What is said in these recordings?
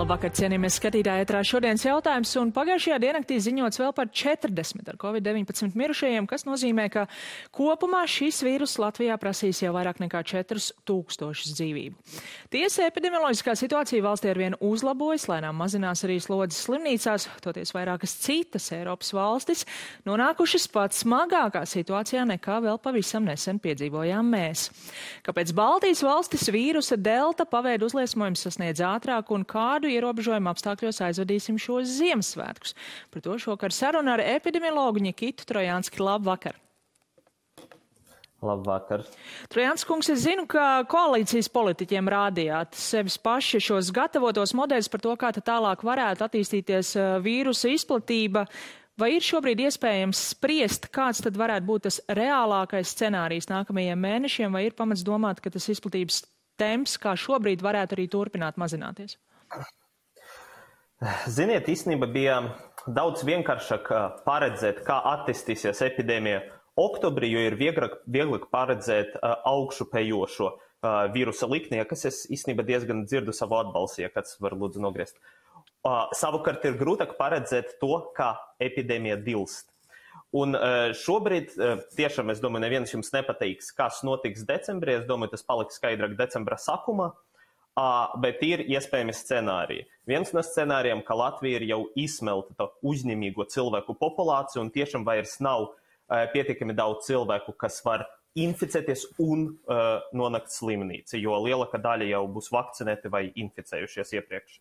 Labvakar, cienījamies skatītāji, ētrā šodienas jautājums, un pagājušajā diennaktī ziņots vēl par 40 ar Covid-19 mirušajiem, kas nozīmē, ka kopumā šis vīrus Latvijā prasīs jau vairāk nekā 4000 dzīvību. Tiesa, epidemioloģiskā situācija valstī arvien uzlabojas, lēnām mazinās arī slodzes slimnīcās, toties vairākas citas Eiropas valstis nonākušas pat smagākā situācijā nekā vēl pavisam nesen piedzīvojām mēs. Kāpēc Baltijas valstis vīrusa delta paveidu uzliesmojums sasniedz ātrāk un kādu ierobežojumu apstākļos aizvadīsim šos Ziemassvētkus? Par to šokar saruna ar epidemiologu Nikitu Trojānski. Labvakar! Labvakar. Trojānski kungs, es zinu, ka koalīcijas politiķiem rādījāt sevis paši šos gatavotos modeļus par to, kā tālāk varētu attīstīties vīrusa izplatība. Vai ir šobrīd iespējams spriest, kāds tad varētu būt tas reālākais scenārijs nākamajiem mēnešiem, vai ir pamats domāt, ka tas izplatības temps, kā šobrīd, varētu arī turpināt mazināties? Ziniet, īstenībā bija daudz vienkāršāk paredzēt, kā attīstīsies epidēmija oktobrī, jo ir vieglāk paredzēt augšupējošo vīrusa liknie, kas es īstenībā diezgan dzirdu savu atbalstu, ja kāds var lūdzu nogriezt. Savukārt ir grūtāk paredzēt to, kā epidēmija dilst. Un šobrīd tiešām, es domāju, neviens jums nepateiks, kas notiks decembrī. Es domāju, tas paliks skaidrāk decembra sākumā, bet ir iespējami scenāriji. Viens no scenārijiem, ka Latvija ir jau izsmelta to uzņemīgo cilvēku populāciju un tiešām vairs nav pietiekami daudz cilvēku, kas var inficēties un nonākt slimnīcā, jo lielākā daļa jau būs vakcinēti vai inficējušies iepriekš.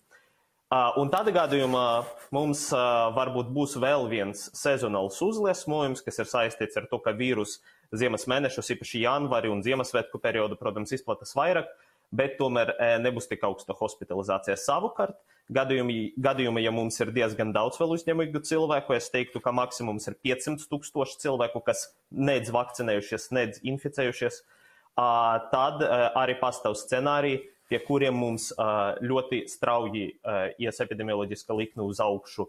Un tādā gadījumā mums varbūt būs vēl viens sezonāls uzliesmojums, kas ir saistīts ar to, ka vīrus ziemas mēnešus, īpaši janvāri un Ziemassvētku periodu, protams, izplatās vairāk, bet tomēr nebūs tik augsta hospitalizācija. Savukārt, gadījumi, ja mums ir diezgan daudz vēl uzņemīgu cilvēku, es teiktu, ka maksimums ir 500 000 cilvēku, kas nedz vakcinējušies, nedz inficējušies, tad arī pastāv scenāriji, pie kuriem mums ļoti strauji ies epidemioloģiska likme uz augšu,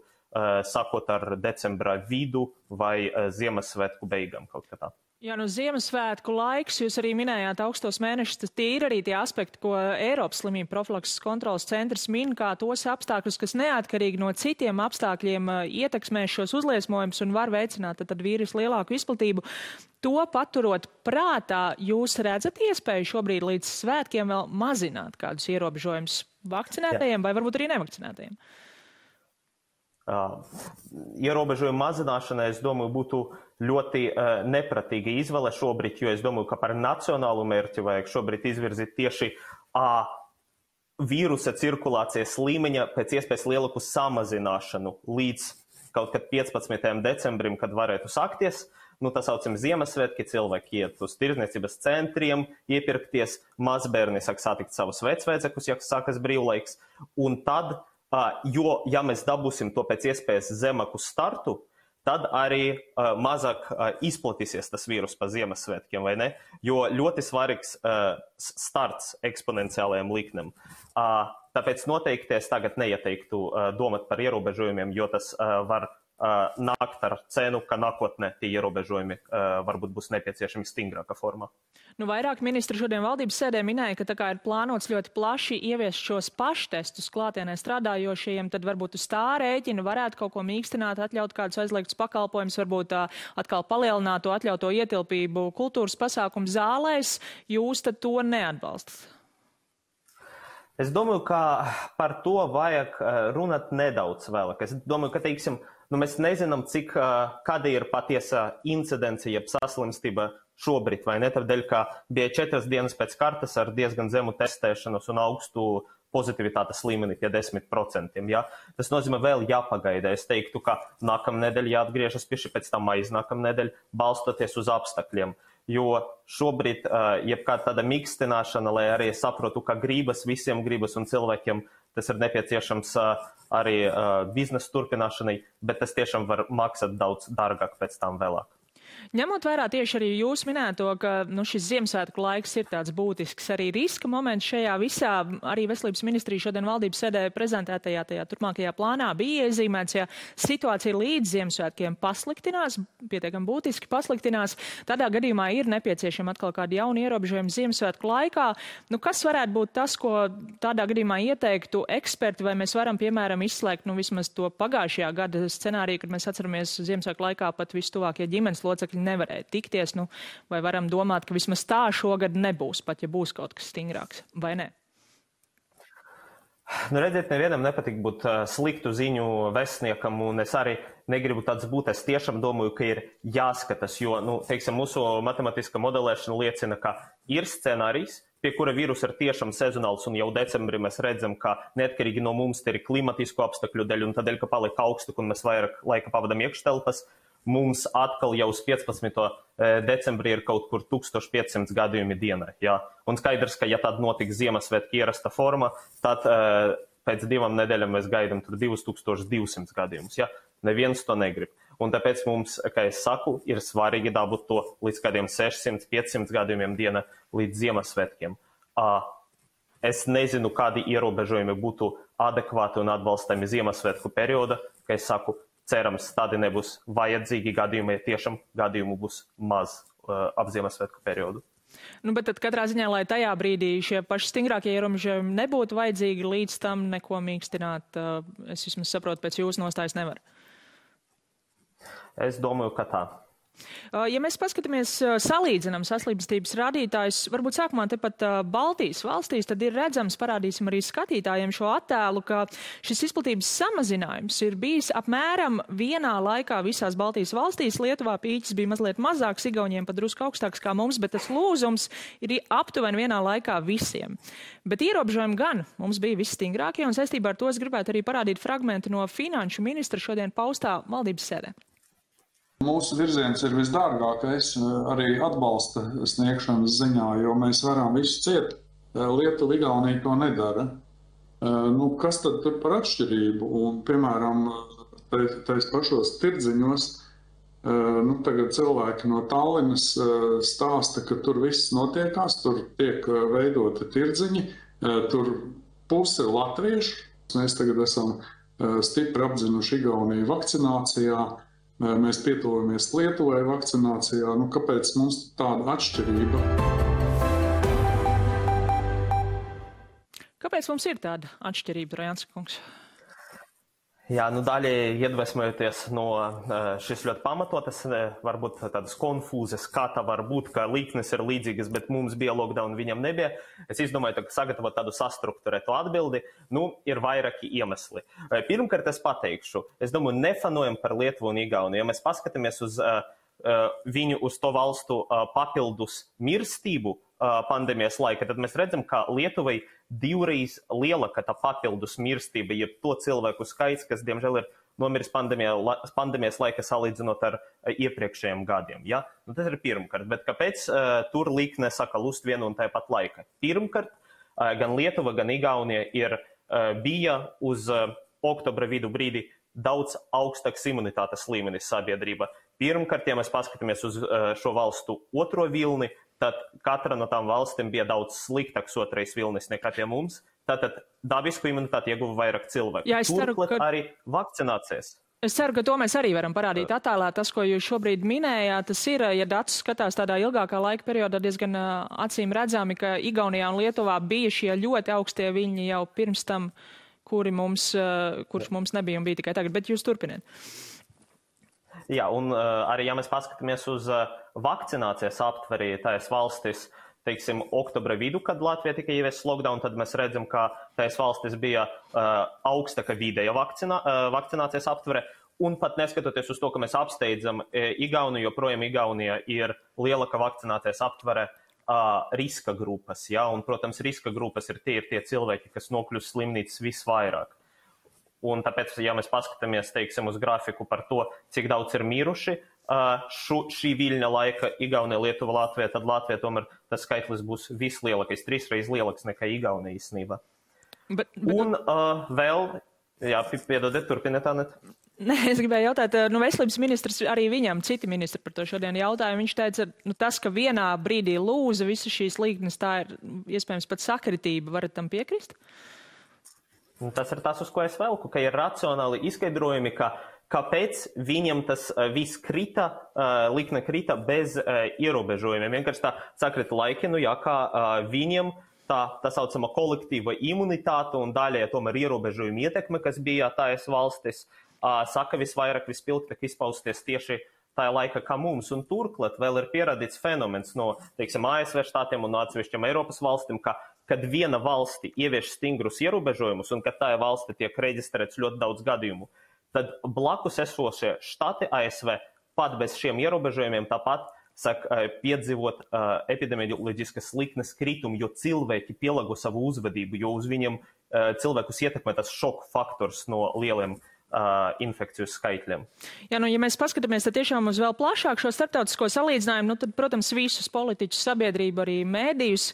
sākot ar decembra vidu vai Ziemassvētku beigām kaut kā tā. Jā, no Ziemassvētku laiks, jūs arī minējāt augstos mēnešus, tas tie ir arī tie aspekti, ko Eiropas slimību profilakses kontrolas centrs min, kā tos apstākļus, kas neatkarīgi no citiem apstākļiem ietekmēs šos uzliesmojumus un var veicināt tad vīrusu lielāku izplatību. To paturot prātā, jūs redzat iespēju šobrīd līdz svētkiem vēl mazināt kādus ierobežojumus vakcinētajiem vai varbūt arī nevakcinētajiem? Ierobežojumu mazināšana, es domāju, būtu ļoti nepratīga izvēle šobrīd, jo es domāju, ka par nacionālu mērķi vajag šobrīd izvirzīt tieši vīrusa cirkulācijas līmeņa pēc iespējas lielāku samazināšanu līdz kaut kad 15. decembrim, kad varētu sākties. Tā saucam Ziemassvētki, cilvēki iet uz tirdzniecības centriem, iepirkties, mazbērni sāk satikt savus vecvecākus, ja sākas brīvlaiks, un tad jo, ja mēs dabūsim to pēc iespējas zemāku startu, tad arī mazāk izplatīsies tas vīrus pa Ziemassvētkiem, vai ne? Jo ļoti svarīgs starts eksponenciālajiem liknēm. Tāpēc noteikti es tagad neieteiktu domāt par ierobežojumiem, jo tas var nākt ar cenu, ka nākotnē tie ierobežojumi varbūt būs nepieciešami stingrākā formā. Vairāk ministri šodien valdības sēdē minēja, ka tā kā ir plānots ļoti plaši ieviest šos paštestus klātienē strādājošajiem, tad varbūt uz tā rēķina varētu kaut ko mīkstināt, atļaut kādus aizliegtus pakalpojumus, varbūt atkal palielināt to atļauto ietilpību kultūras pasākumu zālēs. Jūs tad to neatbalstat? Es domāju, ka par to vajag runāt nedaudz vēlāk. Es domāju, ka, teiksim, mēs nezinām, kāda ir patiesa incidence, jeb saslimstība šobrīd, vai ne? Tādēļ, ka bija 4 dienas pēc kartas ar diezgan zemu testēšanos un augstu pozitivitātes līmeni pie 10%. Ja? Tas nozīmē vēl jāpagaida. Es teiktu, ka nākamnedēļ jāatgriežas pie šī, pēc tam aiznākamnedēļ, balstoties uz apstākļiem. Jo šobrīd, jebkāda tāda mīkstināšana, lai arī saprotu, ka visiem gribas un cilvēkiem tas ir nepieciešams arī biznesa turpināšanai, bet tas tiešām var maksāt daudz dārgāk pēc tam vēlāk. Ņemot vērā tieši arī jūs minēto, ka šis Ziemassvētku laiks ir tāds būtisks arī riska moments šajā visā, arī Veselības ministrija šodien valdības sēdē prezentētajā tajā turpmākajā plānā bija iezīmēts, ja situācija līdz Ziemassvētkiem pasliktinās, pietiekami būtiski pasliktinās, tādā gadījumā ir nepieciešama atkal kāda jauna ierobežojuma Ziemassvētku laikā. Kas varētu būt tas, ko tādā gadījumā ieteiktu eksperti, vai mēs varam, piemēram, izslēgt vismaz to pagājušajā gada scenāriju, kad mēs atceramies Ziemassvētku laikā pat vistuvākie ģimenes locekļi nevarēja tikties, vai varam domāt, ka vismaz tā šogad nebūs, pat ja būs kaut kas stingrāks, vai ne? Redziet, nevienam nepatīk būt sliktu ziņu vēstniekam, un es arī negribu tāds būt. Es tiešām domāju, ka ir jāskatās, jo, teiksim, mūsu matemātiskā modelēšana liecina, ka ir scenārijs, pie kura vīruss ir tiešām sezonāls, un jau decembrī mēs redzam, ka neatkarīgi no mums te ir klimatisku apstākļu dēļ, un tādēļ, ka paliek augstāk, un mēs vairāk laika pavadam iekštelpas, mums atkal jau uz 15. decembrī ir kaut kur 1500 gadījumi dienā. Ja? Un skaidrs, ka ja tad notiks Ziemassvētku ierasta forma, tad pēc 2 nedēļām mēs gaidām 2200 gadījumus. Ja? Neviens to negrib. Un tāpēc mums, kā es saku, ir svarīgi dabūt to līdz kādiem 600-500 gadījumiem dienā līdz Ziemassvētkiem. Es nezinu, kādi ierobežojumi būtu adekvāti un atbalstami Ziemassvētku perioda, kā es saku, cerams, tādi nebūs vajadzīgi gadījumi, ja tiešām gadījumu būs maz ap Ziemassvētku periodu. Bet tad katrā ziņā, lai tajā brīdī šie paši stingrākie ierobežojumi nebūtu vajadzīgi, līdz tam neko mīkstināt, es vismaz saprotu, pēc jūsu nostājas nevar. Es domāju, ka tā. Ja mēs paskatāmies, salīdzinām saslimstības rādītājus, varbūt sākumā tepat Baltijas valstīs, tad ir redzams, parādīsim arī skatītājiem šo attēlu, ka šis izplatības samazinājums ir bijis apmēram vienā laikā visās Baltijas valstīs. Lietuvā pīķis bija mazliet mazāks, Igauniem pat drusku augstāks kā mums, bet tas lūzums ir aptuveni vienā laikā visiem. Bet ierobežojumi gan mums bija visstingrākie, un saistībā ar to es gribētu arī parādīt fragmentu no finanšu ministra šodien paustā valdības sēdē. Mūsu virziens ir visdārgākais arī atbalsta sniegšanas ziņā, jo mēs varam visu ciet. Lietuva, Igaunija to nedara. Kas tad tur par atšķirību? Un, piemēram, tais pašos tirdziņos, tagad cilvēki no Tallinas stāsta, ka tur viss notiekās, tur tiek veidoti tirdziņi, tur puse latviešu. Mēs tagad esam stipri apdzinuši Igauniju vakcinācijā. Mēs pietuvamies Lietuvai vakcinācijā. Kāpēc mums tāda atšķirība? Kāpēc mums ir tāda atšķirība, Trojānska kungs? Jā, daļai iedvesmojoties no šis ļoti pamatotas, varbūt tādas konfūzes, kā tā var būt, ka liknes ir līdzīgas, bet mums bija lockdown, viņam nebija. Es izdomāju, ka sagatavot tādu sastrukturētu atbildi, ir vairāki iemesli. Pirmkārt, es pateikšu, es domāju, nefanojam par Lietuvu un Igauniju. Ja mēs paskatāmies uz viņu, uz to valstu papildus mirstību pandēmijas laika, tad mēs redzam, ka Lietuvai divreiz lielāka tā papildus mirstība, jeb to cilvēku skaits, kas, diemžēl, ir nomiris pandēmijas laika salīdzinot ar iepriekšējiem gadiem. Ja? Tas ir pirmkārt, bet kāpēc tur likne saka lust vienu un tāpat laika? Pirmkārt, gan Lietuva, gan Igaunija bija uz oktobra vidu brīdi daudz augstāks imunitātes līmenis sabiedrība. Pirmkārt, ja mēs paskatāmies uz šo valstu otro vilni, tad katra no tām valstīm bija daudz sliktāks otrais vilnis nekā pie mums. Tātad dabisku imunitāti ieguva vairāk cilvēku. Jā, turklāt arī vakcinācijas. Es ceru, ka to mēs arī varam parādīt attēlā. Tas, ko jūs šobrīd minējāt, tas ir, ja datus skatās tādā ilgākā laika periodā, diezgan acīm redzami, ka Igaunijā un Lietuvā bija šie ļoti augstie viļņi jau pirms tam, kurš mums nebija un bija tikai tagad. Bet jūs turpiniet. Jā, un arī, ja mēs paskatāmies uz vakcinācijas aptverī tās valstis, teiksim, oktobra vidu, kad Latvija tika ieviests lockdown, tad mēs redzam, ka tās valstis bija augstāka vidēja vakcinācijas aptvere, un pat neskatoties uz to, ka mēs apsteidzam Igauniju, joprojām Igaunija ir lielāka vakcinācijas aptvere riska grupas, ja? Un, protams, riska grupas ir tie cilvēki, kas nokļūst slimnīcas visvairāk. Un tāpēc, ja mēs paskatāmies, teiksim, uz grafiku par to, cik daudz ir miruši šī viļņa laika Igaunija, Lietuva, Latvija, tad Latvija tomēr tas skaitlis būs vislielākais, 3 reizes lielāks nekā Igaunija īstenībā. Un vēl, jā, piedodiet, turpiniet, Anet. Nē, es gribēju jautāt, veselības ministrs, arī viņam citi ministri par to šodien jautāja. Viņš teica, tas, ka vienā brīdī lūza visas šīs līknes, tā ir iespējams pat sakritība. Varat tam piekrist? Tas ir tas, uz ko es velku, ka ir racionāli izskaidrojumi, kāpēc viņam tas viss krita, likne krita bez ierobežojumiem. Vienkārši tā sakrita laiki, kā viņam tā saucama kolektīva imunitāte un daļai tomēr ierobežojuma ietekme, kas bija tājas valstis, saka visvairāk vispilgtāk izpausties tieši tajā laika kā mums. Un turklāt vēl ir pierādīts fenomens no, teiksim, ASV štātiem un no atsevišķiem Eiropas valstīm, kad viena valsti ievieš stingrus ierobežojumus un kad tajā valsti tiek reģistrēts ļoti daudz gadījumu, tad blakus esošie štāti ASV pat bez šiem ierobežojumiem tāpat piedzīvot epidemioloģiskas liknes kritumu, jo cilvēki pielāgo savu uzvedību, jo uz viņiem cilvēkus ietekmē tas šoku faktors no lieliem infekciju skaitļiem. Jā, ja mēs paskatāmies tiešām uz vēl plašāk šo starptautisko salīdzinājumu, tad, protams, visus politiķus, sabiedrību, arī mēdījus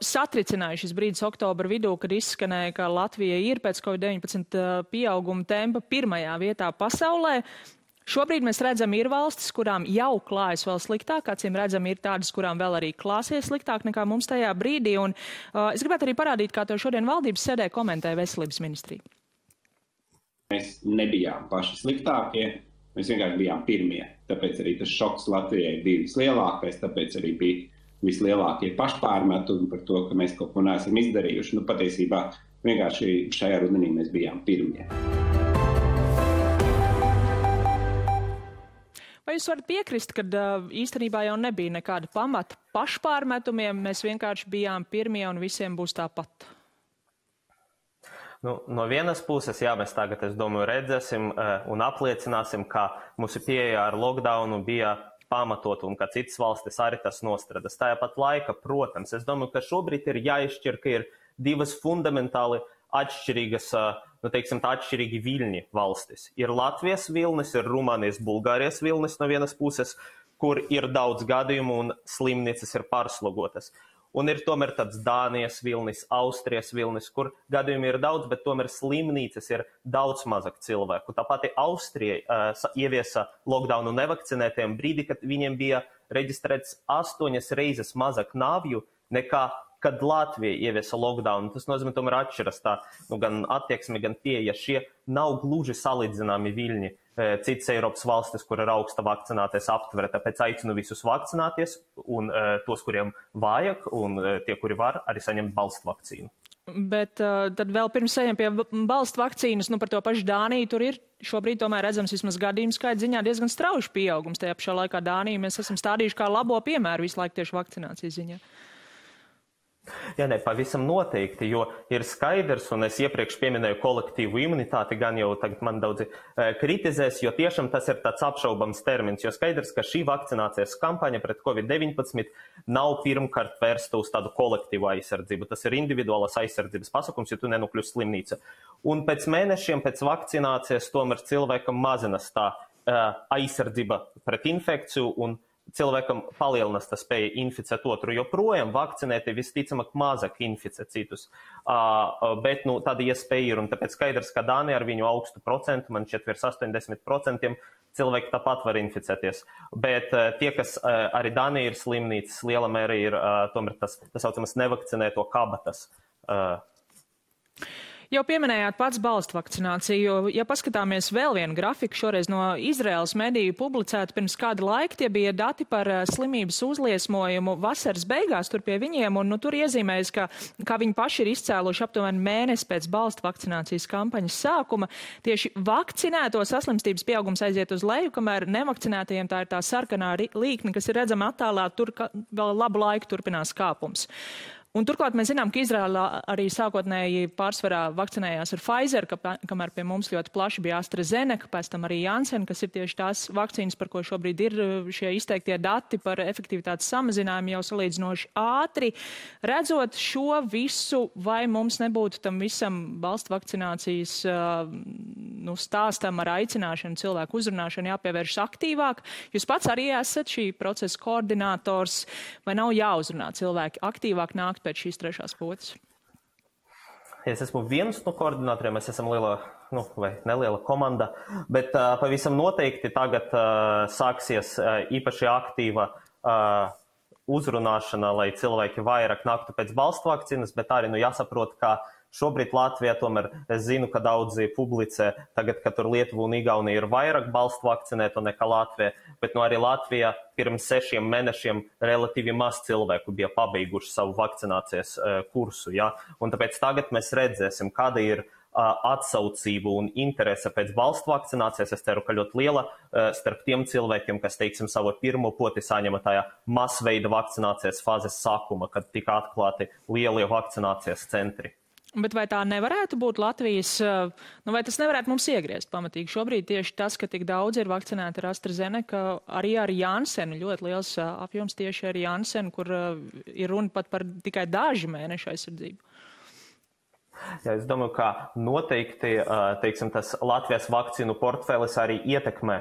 satricināja šis brīdis oktobra vidū, kad izskanēja, ka Latvija ir pēc COVID-19 pieauguma tempa pirmajā vietā pasaulē. Šobrīd mēs redzam, ir valstis, kurām jau klājas vēl sliktāk, acīm redzam, ir tādas, kurām vēl arī klāsies sliktāk nekā mums tajā brīdī. Un es gribētu arī parādīt, kā to šodien valdības sēdē komentēja veselības ministrija. Mēs nebijām paši sliktākie, mēs vienkārši bijām pirmie. Tāpēc arī tas šoks Latvijai bija vislielākais, tāpēc arī bija vislielākie pašpārmetumi par to, ka mēs kaut ko neesam izdarījuši. Patiesībā vienkārši šajā rudenī mēs bijām pirmie. Vai jūs varat piekrist, ka īstenībā jau nebija nekāda pamata pašpārmetumiem, mēs vienkārši bijām pirmie un visiem būs tāpat? No vienas puses, jā, mēs tagad, es domāju, redzēsim un apliecināsim, ka mūsu pieeja ar lockdownu bija pamatot un ka citas valstis arī tas nostradas. Tāpat laika, protams, es domāju, ka šobrīd ir jāizšķir, ka ir divas fundamentāli atšķirīgas, atšķirīgi viļņi valstis. Ir Latvijas vilnis, ir Rumānijas, Bulgārijas vilnis no vienas puses, kur ir daudz gadījumu un slimnīcas ir pārslogotas. Un ir tomēr tāds Dānijas vilnis, Austrijas vilnis, kur gadījumi ir daudz, bet tomēr slimnīcas ir daudz mazāk cilvēku. Tāpat Austrija ieviesa lockdownu nevakcinētiem brīdī, kad viņiem bija reģistrēts 8 reizes mazāk nāvju nekā kad Latvija ieviesa lockdownu. Tas nozīmē, tomēr atšķiras tā, gan attieksme, gan pieeja. Šie nav gluži salīdzināmi viļņi. Citas Eiropas valstis, kur ir augsta vakcināties aptvere, tāpēc aicinu visus vakcināties un tos, kuriem vajag, un tie, kuri var, arī saņemt balstu vakcīnu. Bet tad vēl pirms ejam pie balstu vakcīnas, par to pašu Dāniju, tur ir šobrīd tomēr redzams vismaz gadījumu skaita ziņā diezgan strauji pieaugums. Tajā pašā laikā Dāniju mēs esam stādījuši kā labo piemēru visu laiku tieši vakcinācijas ziņā. Jā, pavisam noteikti, jo ir skaidrs, un es iepriekš pieminēju kolektīvu imunitāti, gan jau tagad man daudzi kritizēs, jo tiešām tas ir tāds apšaubams termins, jo skaidrs, ka šī vakcinācijas kampaņa pret COVID-19 nav pirmkārt vērsta uz tādu kolektīvu aizsardzību. Tas ir individuālas aizsardzības pasākums, ja tu nenokļūsi slimnīca. Un pēc mēnešiem pēc vakcinācijas tomēr cilvēkam mazinās tā aizsardzība pret infekciju un cilvēkam palielinās tā spēja inficēt otru, jo projām vakcinēti visticamāk mazāk inficē citus. Bet tāda iespēja ir, un tāpēc skaidrs, ka Dānija ar viņu augstu procentu, man šķiet virs 80%, cilvēki tāpat var inficēties. Bet tie, kas arī Dānija ir slimnīcas, liela mērā ir tomēr tas saucamas nevakcinēto kabatas. Jau pieminējāt pats balstu vakcināciju. Ja paskatāmies vēl vienu grafiku, šoreiz no Izraēlas mediju publicēta pirms kāda laika, tie bija dati par slimības uzliesmojumu vasaras beigās tur pie viņiem, un tur iezīmējas, ka viņi paši ir izcēluši aptuveni mēnesi pēc balstu vakcinācijas kampaņas sākuma. Tieši vakcinēto saslimstības pieaugums aiziet uz leju, kamēr nevakcinētajiem tā ir tā sarkanā līkne, kas ir redzama attēlā, tur vēl labu laiku turpinās kāpums. Un turklāt mēs zinām, ka Izraēlā arī sākotnēji pārsvarā vakcinējās ar Pfizer, kamēr pie mums ļoti plaši bija AstraZeneca, pēc tam arī Janssen, kas ir tieši tās vakcīnas, par ko šobrīd ir šie izteiktie dati par efektivitātes samazinājumu jau salīdzinoši ātri. Redzot šo visu, vai mums nebūtu tam visam balstu vakcinācijas stāstam ar aicināšanu, cilvēku uzrunāšanu jāpievēršas aktīvāk? Jūs pats arī esat šī procesa koordinators, vai nav jāuzrunā cilvēki aktīvāk nākt pēc šīs trešās potes? Es esmu viens no koordinatoriem, mēs esam liela vai neliela komanda, bet pavisam noteikti tagad sāksies īpaši aktīva uzrunāšana, lai cilvēki vairāk naktu pēc balstu vakcīnas, bet arī jāsaprot, ka šobrīd Latvijā tomēr es zinu, ka daudzi publicē tagad, ka tur Lietuva un Igaunija ir vairāk balstu vakcinēto nekā Latvija, bet arī Latvijā pirms 6 mēnešiem relatīvi maz cilvēku bija pabeiguši savu vakcinācijas kursu. Ja? Un tāpēc tagad mēs redzēsim, kāda ir atsaucību un interese pēc balstu vakcinācijas. Es ceru, ka ļoti liela starp tiem cilvēkiem, kas, teiksim, savu pirmo poti saņema tajā masveida vakcinācijas fāzes sākuma, kad tika atklāti lielie vakcinācijas centri. Bet vai tā nevarētu būt Latvijas, vai tas nevarētu mums iegriezt pamatīgi? Šobrīd tieši tas, ka tik daudz ir vakcinēti ar AstraZeneca, arī ar Janssenu, ļoti liels apjoms tieši ar Janssenu, kur ir runa pat par tikai daži mēneši aizsardzību. Jā, es domāju, ka noteikti, teiksim, tas Latvijas vakcīnu portfēlis arī ietekmē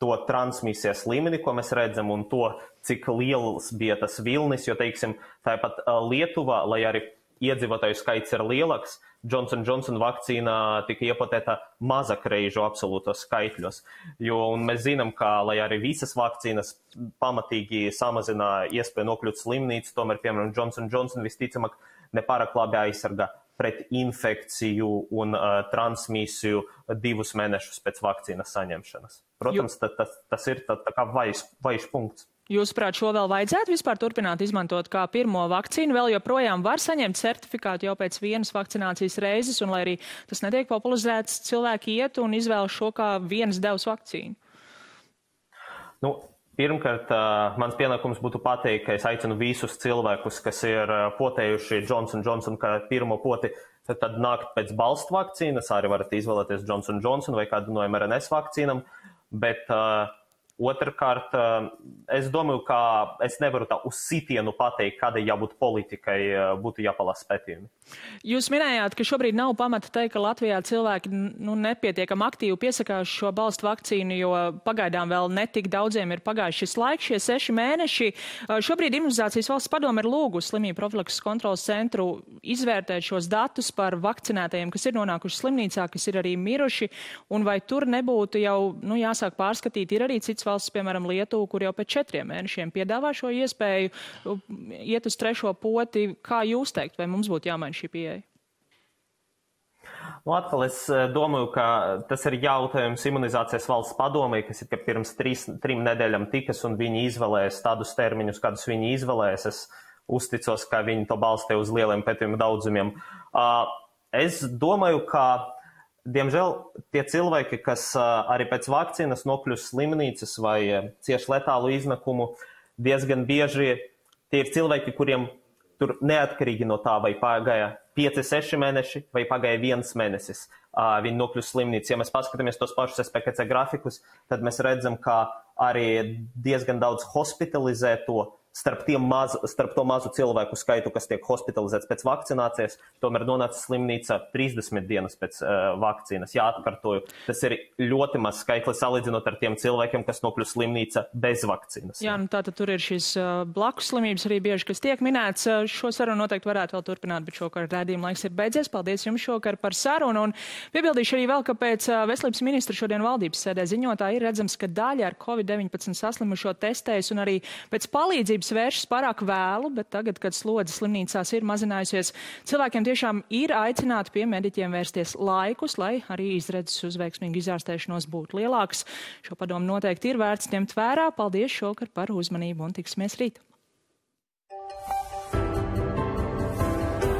to transmisijas līmeni, ko mēs redzam, un to, cik liels bija tas vilnis, jo, teiksim, tāpat Lietuva, lai arī iedzīvotāju skaits ir lielāks, Johnson & Johnson vakcīna tika iepotēta mazakreižu absolūtos skaitļos. Un mēs zinām, ka, lai arī visas vakcīnas pamatīgi samazina iespēju nokļūt slimnīcu, tomēr, piemēram, Johnson & Johnson visticamāk nepārāk labi aizsargā pret infekciju un transmisiju 2 mēnešus pēc vakcīnas saņemšanas. Protams, tas ir tā kā vājš punkts. Jūsuprāt, šo vēl vajadzētu vispār turpināt izmantot kā pirmo vakcīnu? Vēl joprojām var saņemt certifikātu jau pēc vienas vakcinācijas reizes, un lai arī tas netiek popularizēts, cilvēki iet un izvēlas šo kā vienas devas vakcīnu? Pirmkārt, mans pienākums būtu pateikt, ka es aicinu visus cilvēkus, kas ir potējuši Johnson & Johnson kā pirmo poti, tad nākt pēc balstu vakcīnas, arī varat izvēlēties Johnson & Johnson vai kādu no mRNS vakcīnam, bet otrkārt, es domāju, ka es nevaru tā uz sitienu pateikt, kādai jābūt politikai, būtu jāpalasa pētījumi. Jūs minējāt, ka šobrīd nav pamata teikt, ka Latvijā cilvēki nepietiekam aktīvi piesakās šo balstu vakcīnu, jo pagaidām vēl netik daudziem ir pagājuši šis laiks, šie 6 mēneši. Šobrīd Imunizācijas valsts padome ir lūgusi slimību profilakses kontrolas centru izvērtēt šos datus par vakcinētajiem, kas ir nonākuši slimnīcā, kas ir arī miruši, un vai tur nebūtu jau jāsāk pārskatīt, ir arī cits valsts, piemēram, Lietuva, kur jau pēc 4 mēnešiem piedāvā šo iespēju iet uz 3. poti. Kā jūs teikt, vai mums būtu jāmaina šī pieeja? Atkal es domāju, ka tas ir jautājums Imunizācijas valsts padomei, kas ir pirms 3 nedēļām tikas, un viņi izvēlēs tādus termiņus, kādus viņi izvēlēs. Es uzticos, ka viņi to balstē uz lieliem pētījumu daudzumiem. Es domāju, ka diemžēl tie cilvēki, kas arī pēc vakcīnas nokļūst slimnīcas vai cieši letālu iznakumu, diezgan bieži tie ir cilvēki, kuriem tur neatkarīgi no tā, vai pagāja 5-6 mēneši vai pagāja 1 mēnesis, viņi nokļūst slimnīcas. Ja mēs paskatāmies tos pašus SPKC grafikus, tad mēs redzam, ka arī diezgan daudz hospitalizēto starp to mazu cilvēku skaitu, kas tiek hospitalizēts pēc vakcinācijas, tomēr nonāca slimnīca 30 dienas pēc vakcīnas. Jā, atkārtoju, tas ir ļoti maz skaitlis salīdzinot ar tiem cilvēkiem, kas nokļūst slimnīca bez vakcīnas. Jā, tātad tur ir šīs blakus slimības arī bieži, kas tiek minēts. Šo sarunu noteikti varētu vēl turpināt, bet šokar rādījuma laiks ir beidzies. Paldies jums šokar par sarunu. Un piebildīšu arī vēl, ka pēc veselības ministra šodien valdības sēdē ziņotā ir redzams, ka daļa ar COVID-19 saslimušo testējas un arī pēc palīdzības vēršas pārāk vēlu, bet tagad, kad slodze slimnīcās ir mazinājusies, cilvēkiem tiešām ir aicināti pie mediķiem vērsties laikus, lai arī izredzes uz veiksmīgu izārstēšanos būtu lielāks. Šo padomu noteikti ir vērts ņemt vērā. Paldies šokar par uzmanību un tiksimies rīt.